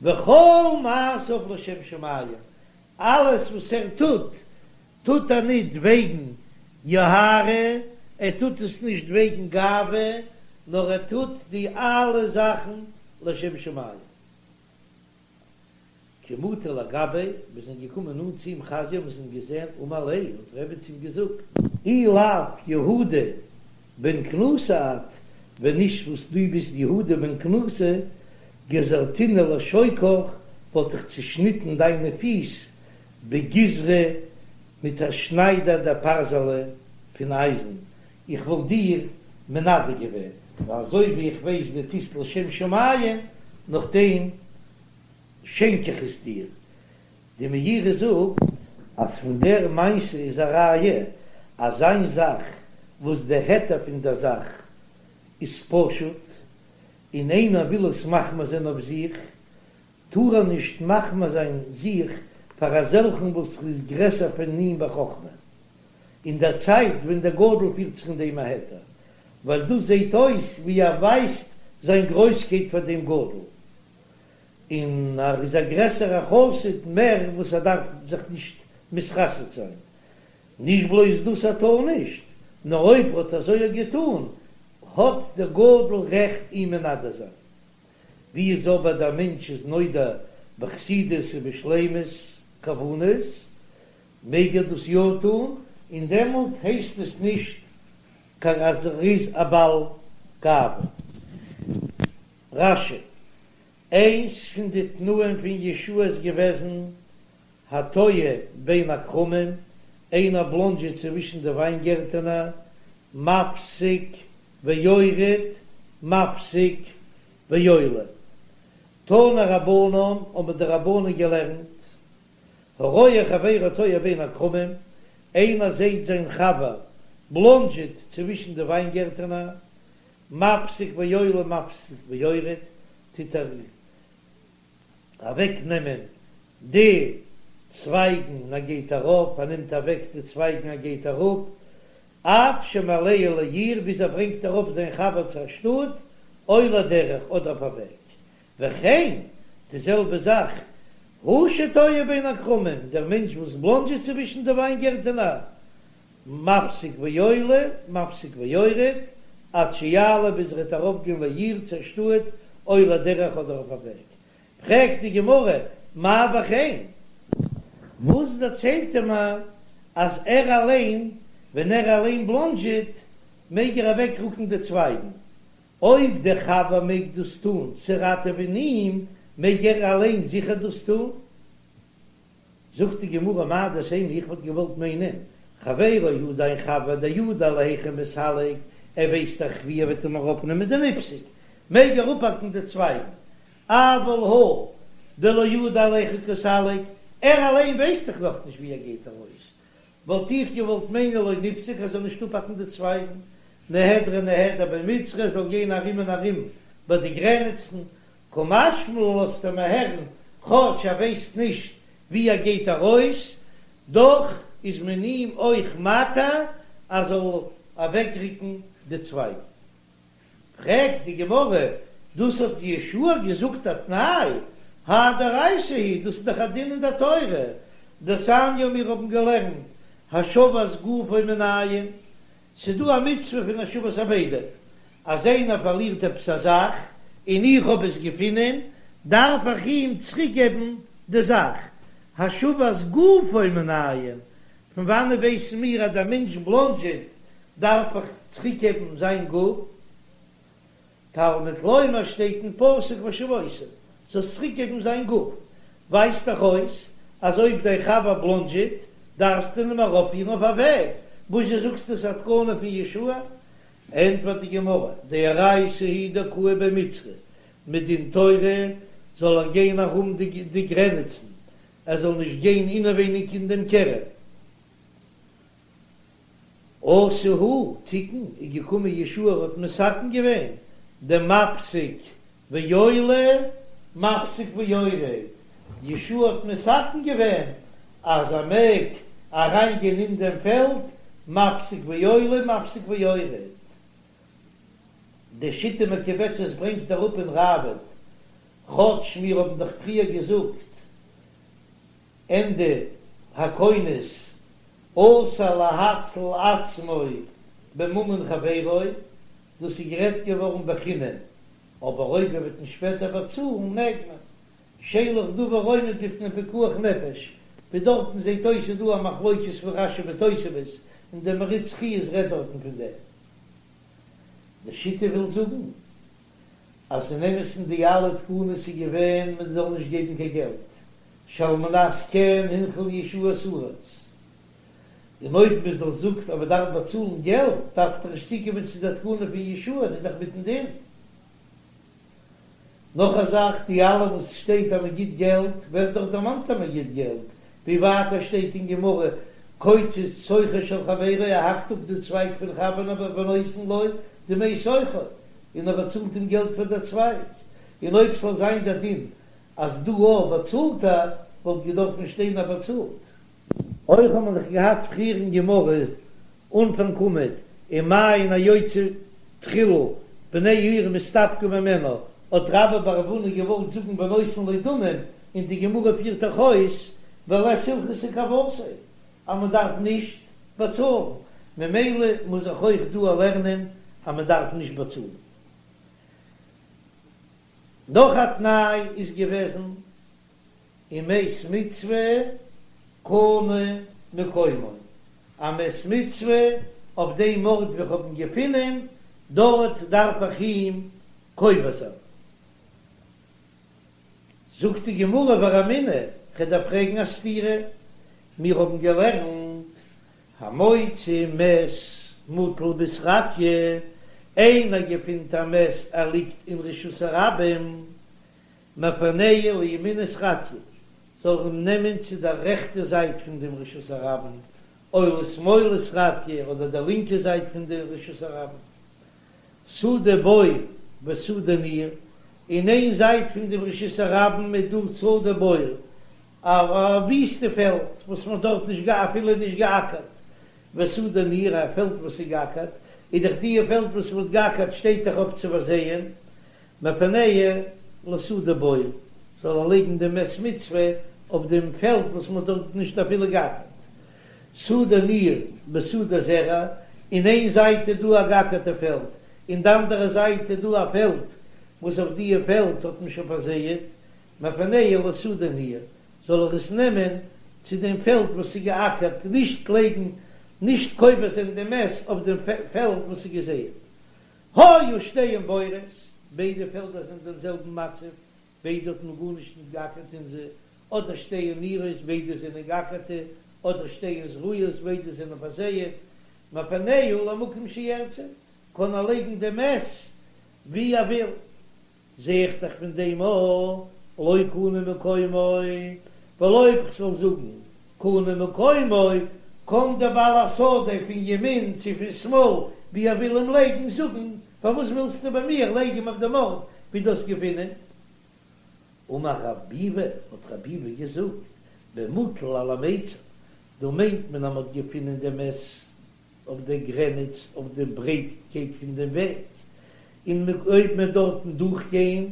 וכל מעשיו לשם שמים, אלעס וואס ער טוט, טוט ער ניט וועגן יוהרא, ער טוט עס נישט וועגן גאווה, נאר ער טוט די אלע זאכן לשם שמים. כי מטו לגביה, מיר זענען געקומען נאנט צו אים חזייה, מיר האבן געזען, אמר ליה, האט רבי צו אים געזאגט, אי לאו יהודה בן קנוסא את, ווען נישט וואס דו ביסט יהודה בן קנוסא, גזרתינהו לשוקך, וואלט איך צושניטן דיינע פיס בגיזרא מיט א שניידער דפרזלא פון אייזן, איך וואלט דיר מנדה געווען, ווייל אזוי ווי איך ווייס דו טוסט לשם שמים, נאכדעם שענק איך עס דיר. די מאירי זאגט אז פון דער מעשה איז א ראיה אז איין זאך וואס דער היתר פון דער זאך איז פשוט און איינער וויל עס מחמיר זיין אויף זיך, טאר ער נישט מחמיר זיין זיך פאר אזעלכן וואס איז גרעסער פון אים בחכמה, אין דער צייט ווען דער גדול פירט זיך אין דעם א היתר, ווייל דאס זעט אויס ווי ער ווייזט זיין גרויסקייט פאר דעם גדול, און ער איז א גרעסערע חסיד מער וואס ער דארף זיך נישט מתחסד זיין. נישט בלויז דאס ער טאר נישט, נאר אויב ער האט אזוי געטאן האט דער גדול רעכט אים מנדה זיין. ווי איז אבער דער מענטש איז נודע בחסידות ובשלימות כוונות, מעג ער דאס יא טאן, און דעמאלט הייסט עס נישט קיין אז ער איז א בעל גאווה. רש"י, איינס פון די תנאים פון יהושע איז געוועזן התועה בין הכרמים, איינער בלאנדזשעט צווישן די וויינגערטענער, מפסיק ויורד מפסיק ועולה. תנו רבנן, האבן די רבנן געלערנט, הרואה חברו תועה בין הכרמים, איינער זעהט זיין חבר בלאנדזשעט צווישן די וויינגערטענער, מפסיק ועולה מפסיק ויורד, טוט ער אוועק נעמען די צווייגן און ער גייט ארויף, ער נעמט אוועק די צווייגן ער גייט אראפ, עד שמעלהו לעיר ביז ער ברענגט ארויף זיין חבר צו א שטאט, או לדרך אדער אויף א וועג, וכן די זעלבע זאך הוא שתועה בין הכרמים, דער מענטש וואס בלאנדזשעט צווישן די וויינגערטענער, מפסיק ועולה, מפסיק ויורד, עד שיעלה ביז ער וועט ארויפגיין לעיר צו א שטאט, או לדרך אדער אויף א וועג. פרעגט די גמרא, מאי וכן? וואס דערציילט ער מיר אז ער אליין, ווען ער אליין בלאנדזשעט, מעג ער אוועקרוקן די צווייגן? אויב דער חבר מעג דאס טון צו ראטעווען אים, מעג ער אליין זיכער דאס טון. זאגט די גמרא מהו דתימא איך וואלט געוואלט מיינען חברו הוא דיין חבר דידע להיכא מסלק ער ווייסט דאך ווי ער וועט אים אראפנעמען דניפסוק מעג ער אפהאקן די צווייגן אבל הוא דלא ידע להיכא קסליק ער אליין ווייסט דאך נאכנישט ווי ער גייט ארויס וואלט איך געוואלט מיינען לא ניפסוק ער זאל נישט אפהאקן די צווייגן נהדריה נהדר בי מיצרי ער זאל גיין ארום און ארום ביי די גרעניצן קא משמע לן לאזט ער מיר הערן, כאטש ער ווייסט נישט ווי ער גייט ארויס, דאך איז מען אים אויך מתיר ער זאל אוועקרוקן די צווייגן. פרעגט די גמרא, דאס האט יהושע געזאגט א תנאי, האי דאורייתא היא, דאס איז דאך א דין אין דער תורה, דתניא מיר האבן געלערנט השבת גופו מנין, ס'דא א מצוה פון השבת אבידה, אז איינער פארלירט עפעס א זאך און איך האב עס געפונען, דארף איך אים צוריקגעבן די זאך. השבת גופו מנין, פון וואנעט ווייסן מיר אז דער מענטש בלאנדזשעט דארף איך צוריקגעבן זיין גוף? תלמוד לומר שטייט אין פסוק והשבותו, זאלסט צוריקגעבן זיין גוף, ווייזט דאך אויס אז אויב דיין חבר בלאנדזשעט דארפסטו אים ארויפפירן אויף א וועג, וואזשע זאגסטו ס'איז א תקנה פון יהושע? ענטפערט די גמרא, דאורייתא היא דקאי בי מיצרי, מדין תורה זאל ער גיין ארום די גרעניצן, ער זאל נישט גיין אינעווייניג אין דעם כרם. אתא הוא תיקן איז געקומען יהושע האט מתקן געווען דמפסיק ועולה מפסיק ויורד, יהושע האט מתקן געווען אז ער מעג אריין גיין אין דעם פעלד מפסיק ועולה מפסיק ויורד. די שיטה מקובצת ברענגט אראפ אין ראב"ד, כאטש מיר האבן דאך פריער געזאגט ענדע הכונס אסור להציל עצמו בממון חברו, דאס איז גערעדט געווארן בחינם, אבער אויב ער וועט אים שפעטער באצאלן מעג מען. שאין לך דבר עומד בפני פיקוח נפש, ווי דארטן זעט אויס איז דא א מחלוקת פון רש"י מיט תוספות, און דער מהרי"ץ חיות רעדט דארטן פון דעם. די שיטה וויל זאגן אז אין אמת'ן די אלע תקנות איז געווען מען זאל נישט געבן קיין געלט, שעל מנת כן הנחיל יהושע את הארץ, און אויב מען זאל זאגט אז מען דארף באצאלן געלט דארף דאך נישט צוקומען צו דער תקנה פון יהושע, איז דאך מיטן דין. נאך א זאך, די אלע וואס שטייט אז מען גיט געלט, ווערט דאך דערמאנט אז מען גיט געלט, ווי ווייטער שטייט אין גמרא, קוצץ שוכו של חברו, ער האקט אפ די צווייג פון חבר ונותן לו דמי שוכו, און ער באצאלט אים געלט פאר דער צווייג, און אויב ס'זאל זיין דער דין אז דא אויך באצאלט ער, וואלט געדארפן שטיין אז באצאלט. אויך האט מען דאך געהאט פריער אין גמרא אנפאנג עמוד ומעין היוצא תחילה בני העיר מסתפקים ממנו, האט רבה בר רב הונא געוואלט זאגן ונותן לו דמים, און די גמרא פירט דאך אויס ולית הלכתא כוותיה אז מען דארף נישט באצאלן, ממילא מוז איך אויך דא לערנען אז מען דארף נישט באצאלן. נאך א תנאי איז געוועזן ומת מצוה קנה מקומו, א מת מצוה אויף דעם ארט וואו איך האב אים געפונען, דארט דארף איך אים קובר זיין. זאגט די גמרא ורמינהו, כ'דארף פרעגן א סתירה, מיר האבן געלערנט המוצא מת מוטל בסרטיא, איינער געפינט א מת ער ליגט אין רשות הרבים, מפנהו לימין סרטיא, זאל ער אים נעמען צו דער רעכטע זייט פון דעם רשות הרבים, או לשמאל סרטיא, אדער דער לינקע זייט פון דעם רשות הרבים. שדה בור ושדה ניר, אין איין זייט פון דעם רשות הרבים איז דא שדה בור, א וויסטע פעלד וואס מען האט דארט נישט אפילו נישט געאקערט, ושדה ניר, א פעלד וואס איז געאקערט, איז דאך דיע פעלד וואס מען האט געאקערט שטייט דאך אויף צו פארזייען, מפנהו לשדה בור, זאל ער לייגן דעם מת מצוה אויף דעם פעלד וואס מען האט דארט נישט אפילו געאקערט. שדה ניר בשדה זרע, אין איין זייט איז דא א געאקערטע פעלד, אין די אנדערע זייט איז דא א פעלד וואס אויף דיע פעלד האט מען שוין פארזייעט. מפנהו לשדה ניעור, זאל ער עס נעמען צו דעם פעלד וואס איז געאקערט, נישט לייגן, נישט קובר זיין דעם מת אויף דעם פעלד וואס איז געזייט. היו שתיהן בורות, ביידע פעלדער זענען דעם זעלבן מצב, ביידע האט מען גארנישט נישט געאקערט אין זיי, אדער שתיהן ניעורות, ביידע זענען געאקערטע, אדער שתיהן זרועות, ביידע זענען פארזייעט, מפנהו למקום שירצה, קען ער לייגן דעם מת ווי ער וויל. זע איך דאך פון דעם א לא קנה מקומו, ווייל אויב כ'זאל זאגן קנה מקומו, קען דער בעל השדה פון ימין צו פון שמאל ווי ער וויל אים לייגן זאגן, פארוואס ווילסטו ביי מיר לייג אים אויף דעם ארט ווי דו האסט געפונען? אמר רב ביבי, האט רב ביבי געזאגט, במוטל על המיצר, דא מיינט מען אז מ'האט געפונען דעם מת אויף דער גרעניץ אויף דעם ברייטקייט פון דעם וועג, און אויב מ'וועט דארטן דורכגיין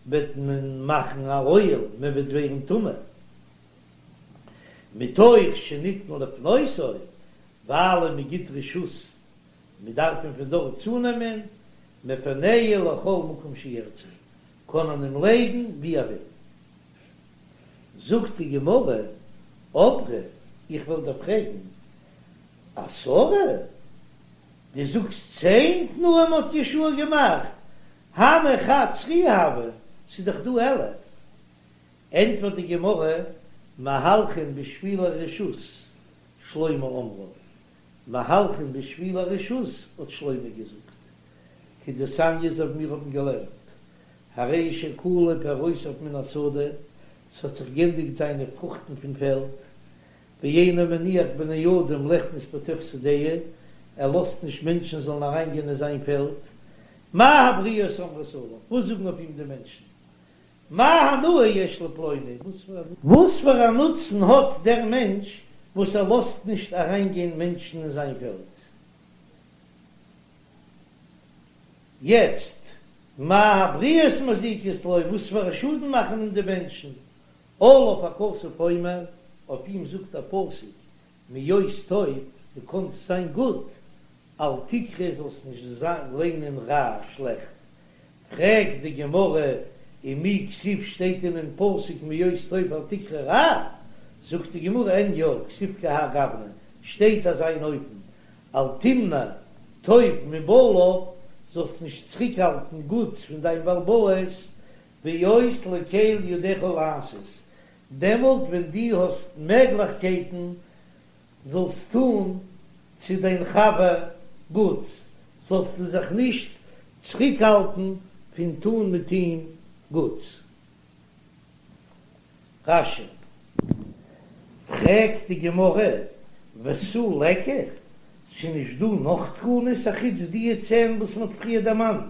וועט מען מאכן א אוהל, מען וועט ווערן טמא. מתוך שניתן לפנותו, ווייל מען גיט רשות, מען דארף אים פון דארט צונעמען, מפנהו לכל מקום שירצה, קען מען אים לייגן ווי ער וויל. זאגט די גמרא, אברי, איך וועל דיר פרעגן, עשרה? דו זאגסט צען תנאים האט יהושע געמאכט, הני חד סרי הוו, ס'איז דאך דא 11. ענטפערט די גמרא, מהלכין בשבילי רשות, שלמה אמרה, מהלכין בשבילי רשות האט שלמה געזאגט, כדתניא אזוי ווי מיר האבן געלערנט, הרי שכלו פירותיו מן השדה, ס'האט זיך גענדיגט זיינע פרוכטן פון פעלד, ואינו מניח בני אדם ליכנס בתוך שדהו, ער לאזט נישט מענטשן זאלן אריינגיין אין זיין פעלד, מה הבריות אומרות עליו, וואס זאגן אויף אים די מענטשן, מה הנאה יש לפלוני, וואס פאר א נוצן האט דער מענטש וואס ער לאזט נישט אריינגיין מענטשן אין זיין פעלד? יעצט, מה הבריות מזיקות לו, וואס פאר א שאדן מאכן אים די מענטשן? עליו הכתוב אומר, אויף אים זאגט א פסוק, מהיות טוב, דו קאנסט זיין גוט, אל תקרא זאלסט נישט ליינען רע, שלעכט. פרעגט די גמרא, ומי כתיב שטייט דען אין פסוק מהיות טוב אל תקרא רע? זאגט די גמרא, אין יא, כתיב כי האי גוונא, שטייט אזא אן אופן, אל תמנע טוב מבעליו, זאלסט נישט צוריקהאלטן גוטס פון דיין בעל הבית, בהיות לקל ידך לעשות, דעמאלט ווען דו האסט מעגליכקייטן זאלסט טון צו דיין חבר גוטס, זאלסטו זיך נישט צוריקהאלטן פון טון מיט אים גוטס. רש"י. פרעגט די גמרא, ותו ליכא, ס'נישט דא נאך תקנות אחוץ דיע צען וואס מ'האט פריער דערמאנט?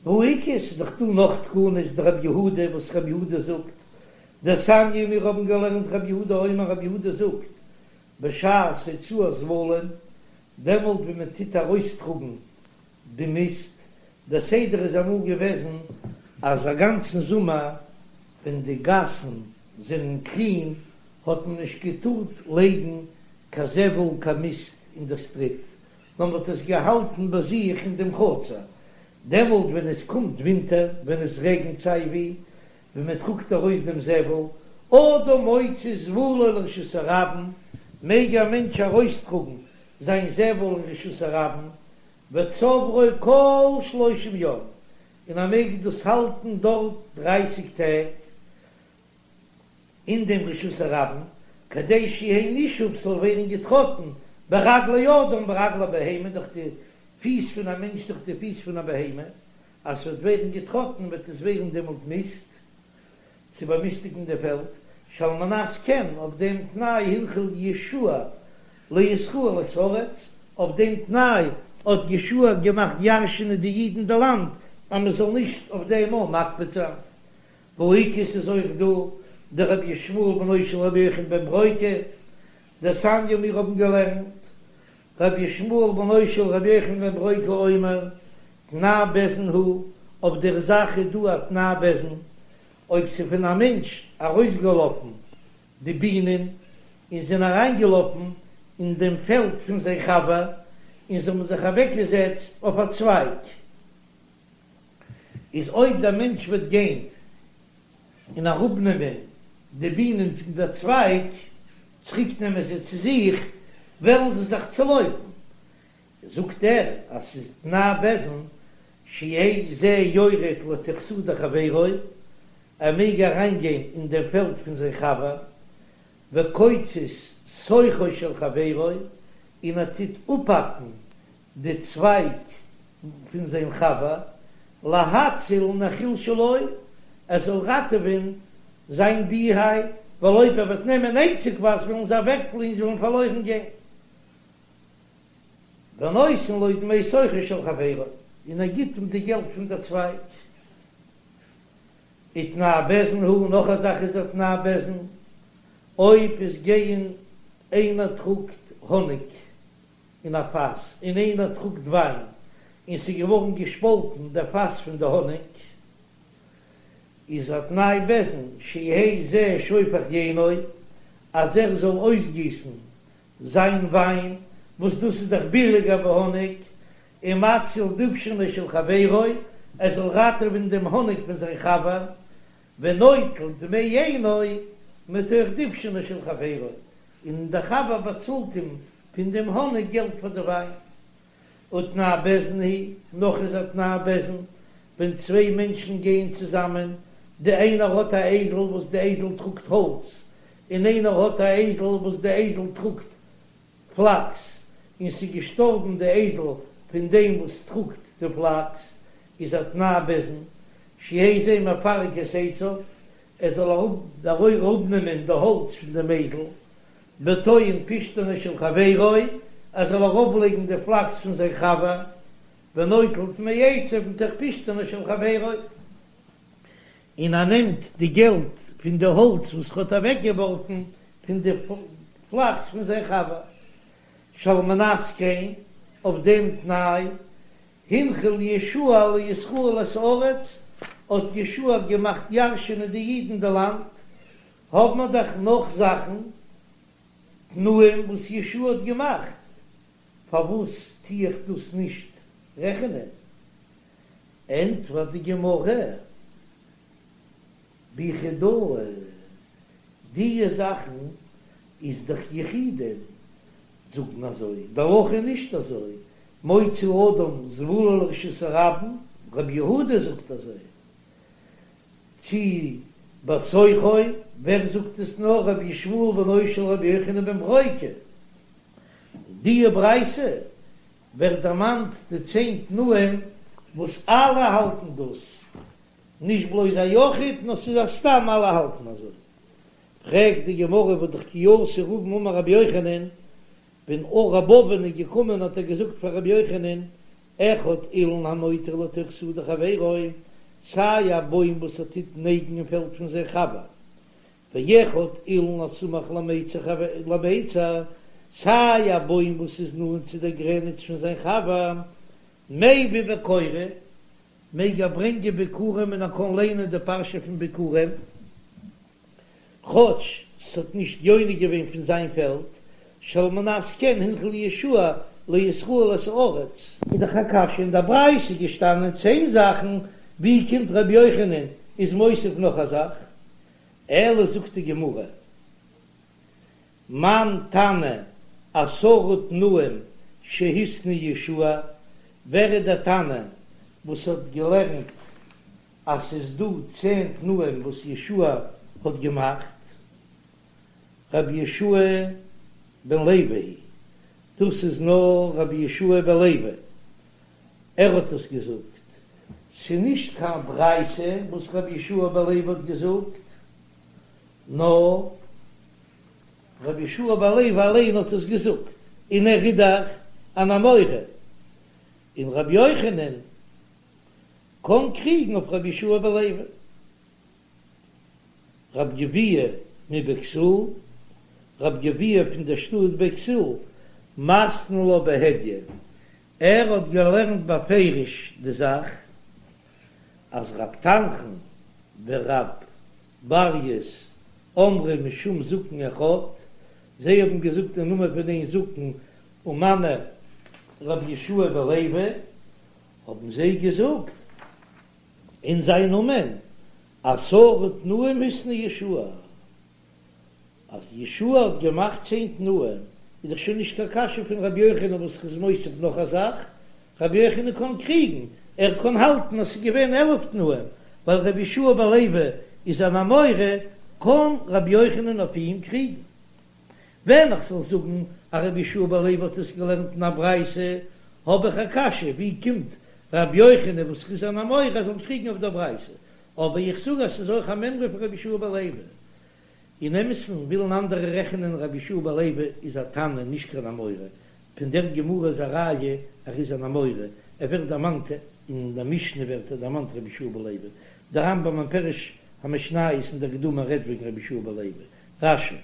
והא איכא, ס'איז דאך דא נאך תקנות דרבי יהודה וואס רבי יהודה זאגט, דתניא מיר האבן געלערנט רבי יהודה אומר רבי יהודה זאגט, בשעת הוצאת זבלים, דעמאלט ווען מען טוט ארויסטראגן די מיסט, דער סדר איז אמאל געוועזן אז א גאנצן זומער ווען די גאסן זענען קלין האט מען נישט געטארט לייגן קיין זבל קיין מיסט אין די סטריט, נאר מען האט עס געהאלטן ביי זיך אין דעם חצר, דעמאלט ווען עס קומט ווינטער, ווען עס רעגנט סיי ווי, ווען מען טראגט ארויס דעם זבל, אדם מוציא זבלו לרשות הרבים, מעג א מענטש ארויסטראגן זיין זבל אין רשות הרבים, וצוברו כל שלושים יום, און ער מעג דאס האלטן דארט דרייסיג טעג, אין דעם רשות הרבים, כדי שיהא נישוף ס'זאל ווערן געטראטן ברגלי אדם ברגלי בהמה דורך די פיס פון א מענטש דורך די פיס פון א בהמה, אז ס'וועט ווערן געטראטן וועט עס ווערן דעמאלט מיסט, צו באמיסטיגן די פעלד, שעל מנת כן אויף דעם תנאי הנחיל יהושע לישראל את הארץ, אויף דעם תנאי האט יהושע געמאכט ירש'ענען די אידן די לאנד אז מ'זאל נישט אויף דעם אויך מקפיד זיין. והא איכא ס'איז אויך דא דרבי ישמעאל בנו של רבי יוחנן בן ברוקה, דתניא מיר האבן געלערנט רבי ישמעאל בנו של רבי יוחנן בן ברוקה אומר, תנאי בית דין הוא, אויף דער זאך איז דא א תנאי בית דין, אויב ס'איז פון א מענטש ארויסגעלאפן די בינען און זענען אריינגעלאפן אין דעם פעלד פון זיין חבר און זיי האבן זיך אוועקגעזעצט אויף א צווייג, איז אויב דער מענטש וועט גיין. און אראפנעמען די בינען פון דער צווייג, צוריק נעמען זיי צו זיך, וועלן זיי זיך צולויפן. זאגט ער אז ס'איז תנאי בית דין שיהא זה יורד לתוך שדה חברו, ער מעג אריינגיין אין דעם פעלד פון זיין חבר, וקוצץ שוכו של חברו, און ער טוט אפהאקן די צווייג פון זיין חבר, להציל נחיל שלו, ער זאל ראטעווען זיין ביהייוו, ווייל אויב ער וועט נעמען איינציגווייז וועלן זיי אוועקפליען, זיי וועלן פארלוירן גיין. ונותן לו דמי שוכו של חברו, און ער גיט אים די געלט פון דער צווייג. ותנאי בית דין הוא, נאך א זאך איז א תנאי בית דין, אויב עס גייען איינער טראגט האניג אין א פאס און איינער טראגט וויין און ס'איז געווארן געשפאלטן דער פאס פון די האניג, איז א תנאי בית דין שיהא זה שופך יינו, אז ער זאל אויסגיסן זיין וויין, וואס דאס איז דאך ביליגער ווי האניג, ומציל דובשנו של חברו, ער זאל ראטעווען דעם האניג פון זיין חבר, ונוטל דמי יינו מתוך דובשנו של חברו, און דער חבר באצאלט אים פון דעם האניג געלט פאר די וויין. ותנאי בית דין הוא, נאך איז א תנאי בית דין, ווען צוויי מענטשן גייען צוזאמען, די איינער האט א אייזל וואס די אייזל טראגט האלץ, און איינער האט א אייזל וואס די אייזל טראגט פלאקס, און ס'איז געשטארבן די אייזל פון דעם וואס טראגט די פלאקס, איז א תנאי בית דין, שיהא זה מפרק את עציו, ער זאל אראפנעמען די האלץ פון דעם אייזל, וטוען פשתנו של חברו, ער זאל ארויפלייגן די פלאקס פון זיין חבר, ונוטל דמי עציו מתוך פשתנו של חברו, און ער נעמט די געלט פון די האלץ וואס ער האט אוועקגעווארפן פון די פלאקס פון זיין חבר, שעל מנת כן, אויף דעם תנאי, הנחיל יהושע לישראל את הארץ, האט יהושע געמאכט ירשענען די אידן די לאנד, האבן מיר דאך נאך זאכן, תנאים וואס יהושע האט געמאכט, פארוואס טו איך דאס נישט רעכענען? ענטפערט די גמרא, ביחידאה, דיע זאכן איז דאך יחידים זאגן אזוי, די הלכה איז נישט אזוי, מוציא אדם זבולו לרשות הרבים, רבי יהודה זאגט אזוי, צי בתוכו, ווער זאגט עס נאר רבי ישמעאל בנו של רבי יוחנן בן ברוקה, דיע ברייתא ווערט דערמאנט די צען תנאים וואס אלע האלטן דאס, נישט בלויז א יחיד נאר ס'איז א סתם אלע האלטן אזוי. פרעגט די גמרא והא דאך כי אתא רבין אמר רבי יוחנן, ווען רב אבין איז געקומען האט ער געזאגט פאר רבי יוחנן, אחד אילן הנוטה לתוך שדה חברו, סיי א בוים וואס ער טוט נייגן אין פעלד פון זיין חבר, ואחד אילן הסמוך למיצר, סיי א בוים וואס איז נאנט צו דער גרעניץ פון זיין חבר, מביא וקורא, מעג ער ברענגען ביכורים און ער קען ליינען די פרשה פון ביכורים, כאטש ס'האט נישט יונק געווען פון זיין פעלד, שעל מנת כן הנחיל יהושע לישראל את הארץ. איז דאך א קשיא, אין דער ברייתא איז געשטאנען צען זאכן, ווי קומט רבי יוחנן איז מוסיף נאך א זאך? אלא זאגט די גמרא, מאן תנא עשרה תנאים שהתנה יהושע, ווער איז דער תנא וואס האט געלערנט אז ס'איז דא צען תנאים וואס יהושע האט געמאכט? רבי יהושע בן לוי, דאס איז נאר רבי יהושע בן לוי, ער האט עס געזאגט, ס'איז נישט קיין ברייתא וואס רבי יהושע בן לוי האט געזאגט, נאר רבי יהושע בן לוי אליין האט עס געזאגט, און ער איז דאך אן אמורא, און רבי יוחנן קען קריגן אויף רבי יהושע בן לוי. רב גביהה מבכתיל, רב גביהה פון דער שטאט בכתיל, מתני לה בהדיא, ער האט געלערנט בפירוש די זאך אז רב תנחום ורב ברייס אמרי משום זקן אחד, זיי האבן געזאגט אין נאמען פון איין זקן ומנו רבי יהושע בן לוי, האבן זיי געזאגט אין זיין נאמען. עשרה תנאים התנה יהושע, אז יהושע האט געמאכט צען תנאים, איז דאך שוין נישט קיין קשיא פון רבי יוחנן וואס איז מוסיף נאך א זאך, רבי יוחנן קען קריגן, ער קען האלטן אז ס'איז געווען 11 תנאים, ווייל רבי יהושע בן לוי איז אן אמורא, קען רבי יוחנן אויף אים קריגן. ווען איך זאל זאגן אז רבי יהושע בן לוי האט עס געלערנט אין א ברייתא, האב איך א קשיא, ווי קומט רבי יוחנן וואס איז אן אמורא זאל קריגן אויף דער ברייתא? אבער איך זאג אז ס'איז אויך א מימרא פון רבי יהושע בן לוי. אין אמת'ן ווילן אנדערע רעכענען רבי יהושע בן לוי איז א תנא נישט קיין אמורא, פון דער גמרא איז א ראיה ער איז אן אמורא, ער ווערט דערמאנט אין דער משנה ווערט ער דערמאנט רבי יהושע בן לוי, דער רמב"ם אין פירוש המשניות אין דער הקדמה רעדט וועגן רבי יהושע בן לוי, רש"י.